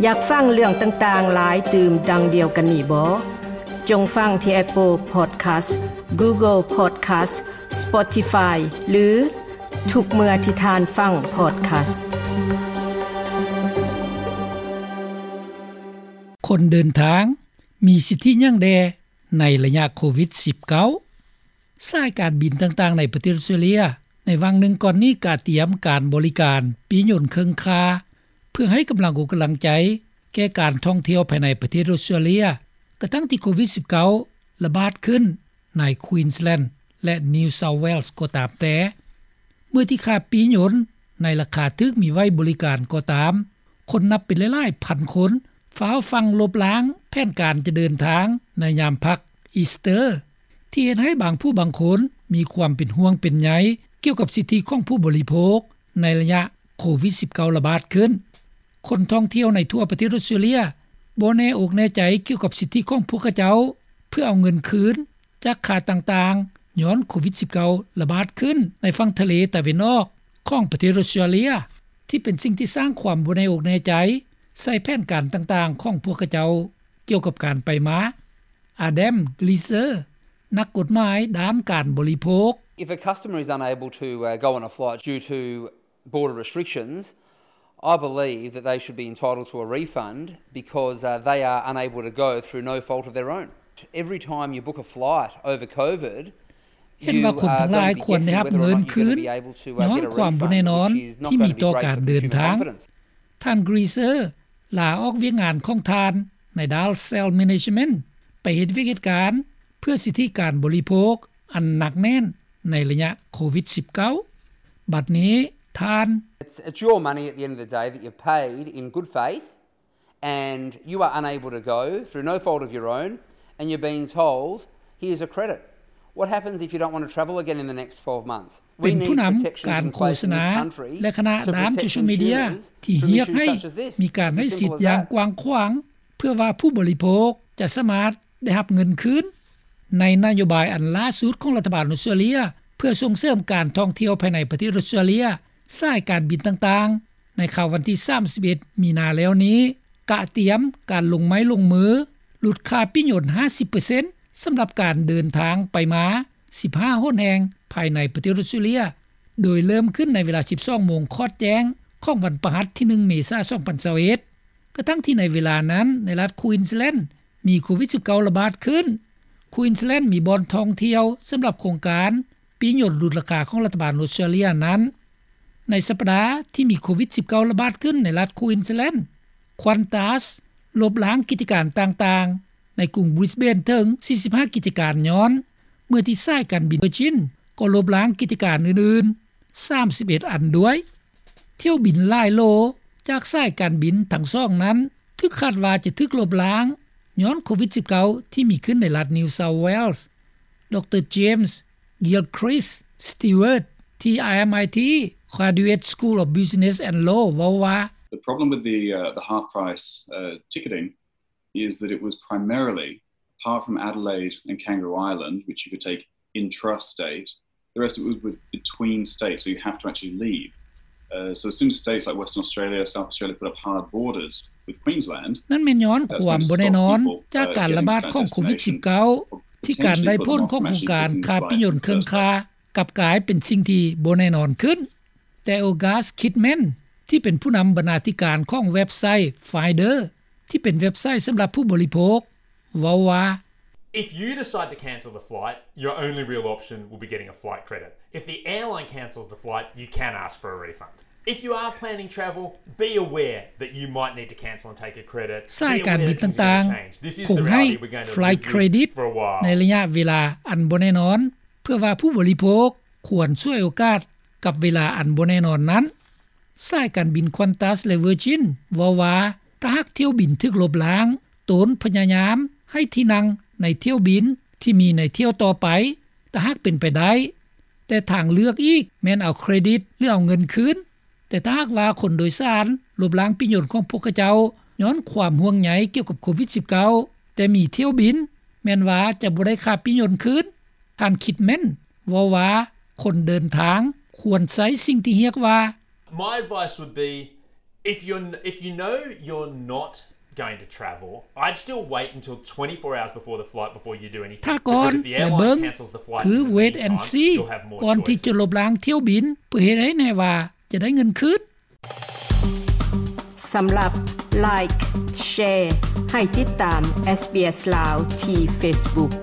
ຢາກຟັງເລື່ອງຕ່າງໆຫຼາຍຕື່ມດັ່ງດຽວກັນນີ້ບໍ? ຈົ່ງຟັງທີ່ Apple Podcast, Google Podcast, Spotify ຫຼື ທຸກເມື່ອທີ່ທ່ານຟັງ podcast. ຄົນເດີນທາງມີສິດທິຫຍັງແດ່ໃນໄລຍະໂຄວິດສິບເກົ້າ? ສາຍການບິນຕ່າງໆໃນປະເທດອອສເຕຣເລັຍ ໃນຫວ່າງໜຶ່ງກ່ອນນີ້ກະຕຽມການບໍລິການປີ້ຍົນເຄິ່ງຄ່າ ເພື່ອໃຫ້ກຳລັງອົກກຳລັງໃຈແກ່ການທ່ອງທ່ຽວພາຍໃນປະເທດອອສເຕຣເລັຍ ກະທັ່ງທີ່ໂຄວິດສິບເກົ້າລະບາດຂຶ້ນໃນ Queensland ແລະ New South Wales ກໍຕາມແຕ່. ເມື່ອທີ່ຄ່າປີ້ຍົນໃນລາຄາຖືກມີໄວ້ບໍລິການກໍຕາມ, ຄົນນັບເປັນຫຼາຍໆພັນຄົນຟ້າວຟັ່ງລົບລ້າງແຜນການຈະເດີນທາງໃນຍາມພັກ Easter ທີ່ເຮັດໃຫ້ບາງຜູ້ບາງຄົນມີຄວາມເປັນຫ່ວງເປັນໃຍກ່ຽວກັບສິດທິຂອງຜູ້ບໍລິໂພກໃນໄລຍະໂຄວິດສິບເກົ້າລະບາດຂຶ້ນ. ຄົນທ່ອງທ່ຽວໃນທົ່ວປະເທດອອສເຕຣເລັຍບໍ່ແນ່ອົກແນ່ໃຈກ່ຽວກັບສິດທິຂອງພວກເຂົາເຈົ້າ ເພື່ອເອົາເງິນຄືນຈາກຄ່າຕ່າງໆ ຍ້ອນໂຄວິດສິບເກົ້າລະບາດຂຶ້ນໃນຝັ່ງທະເລຕາເວັນອອກຂອງປະເທດອອສເຕຣເລັຍ ທີ່ເປັນສິ່ງທີ່ສ້າງຄວາມບໍ່ແນ່ອົກແນ່ໃຈໃສ່ແຜນການຕ່າງໆຂອງພວກເຂົາເຈົ້າກ່ຽວກັບການໄປມາ. Adam Gleeser ນັກກົດໝາຍດ້ານການບໍລິໂພກ. If a customer is unable to, uh, go on a flight due to border restrictions, I believe that they should be entitled to a refund because, uh, they are unable to go through no fault of their own. Every time you book a flight over COVID, ເຫັນວ່າຄົນທັງຫຼາຍຄວນໄດ້ຮັບເງິນຄືນຍ້ອນຄວາມບໍ່ແນ່ນອນທີ່ມີຕໍ່ການເດີນທາງ. ທ່ານ Gleeser ລາອອກວຽກງານຂອງທ່ານໃນດ້ານ Sales Management ໄປເຮັດວຽກເຮັດການເພື່ອສິດທິການບໍລິໂພກອັນໜັກແໜ້ນໃນໄລຍະໂຄວິດສິບເກົ້າ. ບັດນີ້ທ່ານ It's, it's your money at the end of the day that you've paid in good faith, and you are unable to go through no fault of your own, and you're being told, "Here's a credit." What happens if you don't want to travel again in the next twelve months? ເປັນຜູ້ນຳການໂຄສະນາ ແລະ ຄະນະດ້ານໂຊຊຽວມີເດຍທີ່ຮຽກໃຫ້ມີການໃຫ້ສິດຢ່າງກວ້າງຂວາງ ເພື່ອວ່າຜູ້ບໍລິໂພກຈະສາມາດໄດ້ຮັບເງິນຄືນ. ໃນນະໂຍບາຍອັນລ່າສຸດຂອງລັດຖະບານອອສເຕຣເລັຍ ເພື່ອສົ່ງເສີມການທ່ອງທ່ຽວພາຍໃນປະເທດອອສເຕຣເລັຍ, ສາຍການບິນຕ່າງໆ ໃນຄ່ຳວັນທີສາມສິບເອັດ ມີນາແລ້ວນີ້ ກະຕຽມການລົງໄມ້ລົງມື ຫຼຸດຄ່າປີ້ຍົນຫ້າສິບເປີເຊັນ ສຳລັບການເດີນທາງໄປມາ ສິບຫ້າຫົນແຫ່ງພາຍໃນປະເທດອອສເຕຣເລັຍ ໂດຍເລີ່ມຂຶ້ນໃນເວລາສິບສອງໂມງຂອດແຈ້ງຂອງວັນພະຫັດທີໜຶ່ງ ເມສາ ສອງພັນຊາວເອັດ ກະທັ່ງທີ່ໃນເວລານັ້ນໃນລັດ Queensland ມີໂຄວິດສິບເກົ້າລະບາດຂຶ້ນ. Queensland ມີບ່ອນທ່ອງທ່ຽວສຳລັບໂຄງການປີ້ຍົນຫຼຸດລາຄາຂອງລັດຖະບານອອສເຕຣເລັຍນັ້ນ. ໃນສັບປະດາທີ່ມີໂຄວິດສິບເກົ້າລະບາດຂຶ້ນໃນລັດ Queensland, Qantas ລົບລ້າງກິດຈະການຕ່າງໆໃນກຸງ Brisbane ເຖິງສີ່ສິບຫ້າກິດຈະການຍ້ອນ ເມື່ອທີ່ສາຍການບິນ Virgin ກໍລົບລ້າງກິດຈະການອື່ນໆ ສາມສິບເອັດອັນດ້ວຍ. ຖ້ຽວບິນຫຼາຍໂລຈາກສາຍການບິນທັງສອງນັ້ນ ຖືກຄາດວ່າຈະຖືກລົບລ້າງຍ້ອນໂຄວິດສິບເກົ້າ ທີ່ມີຂຶ້ນໃນລັດ New South Wales. ດຣ James Gilchrist Stewart ທີ່ RMIT Graduate School of Business and Law ເວົ້າວ່າ The problem with the, uh, the half price, uh, ticketing is that it was primarily, apart from Adelaide and Kangaroo Island, which you could take intrastate, the rest of it was with, between states, so you have to actually leave. Uh, so as soon as states like Western Australia, South Australia put up hard borders with Queensland, ນັ້ນແມ່ນຍ້ອນຄວາມບໍ່ແນ່ນອນຈາກການລະບາດຂອງໂຄວິດສິບເກົ້າ ທີ່ການໄດ້ຜົນຂອງໂຄງການຄ່າປີ້ຍົນເຄິ່ງຄ່າ ກັບກາຍເປັນສິ່ງທີ່ບໍ່ແນ່ນອນຂຶ້ນ. ແຕ່ August Kidman ທີ່ເປັນຜູ້ນຳບັນນາທິການຂອງເວັບໄຊ Finder ທີ່ເປັນເວັບໄຊສຳລັບຜູ້ບໍລິໂພກ ເວົ້າວ່າ If you decide to cancel the flight, your only real option will be getting a flight credit. If the airline cancels the flight, you can ask for a refund. If you are planning travel, be aware that you might need to cancel and take a credit. ສາຍການບິນຕ່າງໆ ຄົງໃຫ້ flight credit ໃນໄລຍະເວລາອັນບໍ່ແນ່ນອນ ເພື່ອວ່າຜູ້ບໍລິໂພກຄວນສວຍໂອກາດກັບເວລາອັນບໍ່ແນ່ນອນນັ້ນ. ສາຍການບິນ Qantas ແລະ Virgin ເວົ້າວ່າ ຖ້າຫາກຖ້ຽວບິນຖືກລົບລ້າງ, ຕົນພະຍາຍາມໃຫ້ທີ່ນັ່ງໃນຖ້ຽວບິນທີ່ມີໃນຖ້ຽວຕໍ່ໄປ ຖ້າຫາກເປັນໄປໄດ້, ແຕ່ທາງເລືອກອີກແມ່ນເອົາເຄຣດິດ ຫຼື ເອົາເງິນຄືນ. ແຕ່ຖ້າຫາກວ່າຄົນໂດຍສານລົບລ້າງປີ້ຍົນຂອງພວກເຂົາເຈົ້າ ຍ້ອນຄວາມຫ່ວງໃຍກ່ຽວກັບໂຄວິດສິບເກົ້າ ແຕ່ມີຖ້ຽວບິນ ແມ່ນວ່າຈະບໍ່ໄດ້ຄ່າປີ້ຍົນຄືນ. ທ່ານ Kidman ເວົ້າວ່າ ຄົນເດີນທາງຄວນໃຊ້ສິ່ງທີ່ຮຽກວ່າ My advice would be If you're if you know you're not going to travel, I'd still wait until twenty-four hours before the flight before you do anything. ຖ້າກ່ອນ Because if the ແລະ airline ເບິ່ງ cancels the flight ຄື in the wait and meantime, see you'll have more ກ່ອນທີ່ choices. ຈະລົບລ້າງຖ້ຽວບິນ ເພື່ອເຮັດໃຫ້ແນ່ວ່າຈະໄດ້ເງິນຄືນ. ສຳລັບ Like Share ໃຫ້ຕິດຕາມ SBS ລາວ ທີ່ Facebook.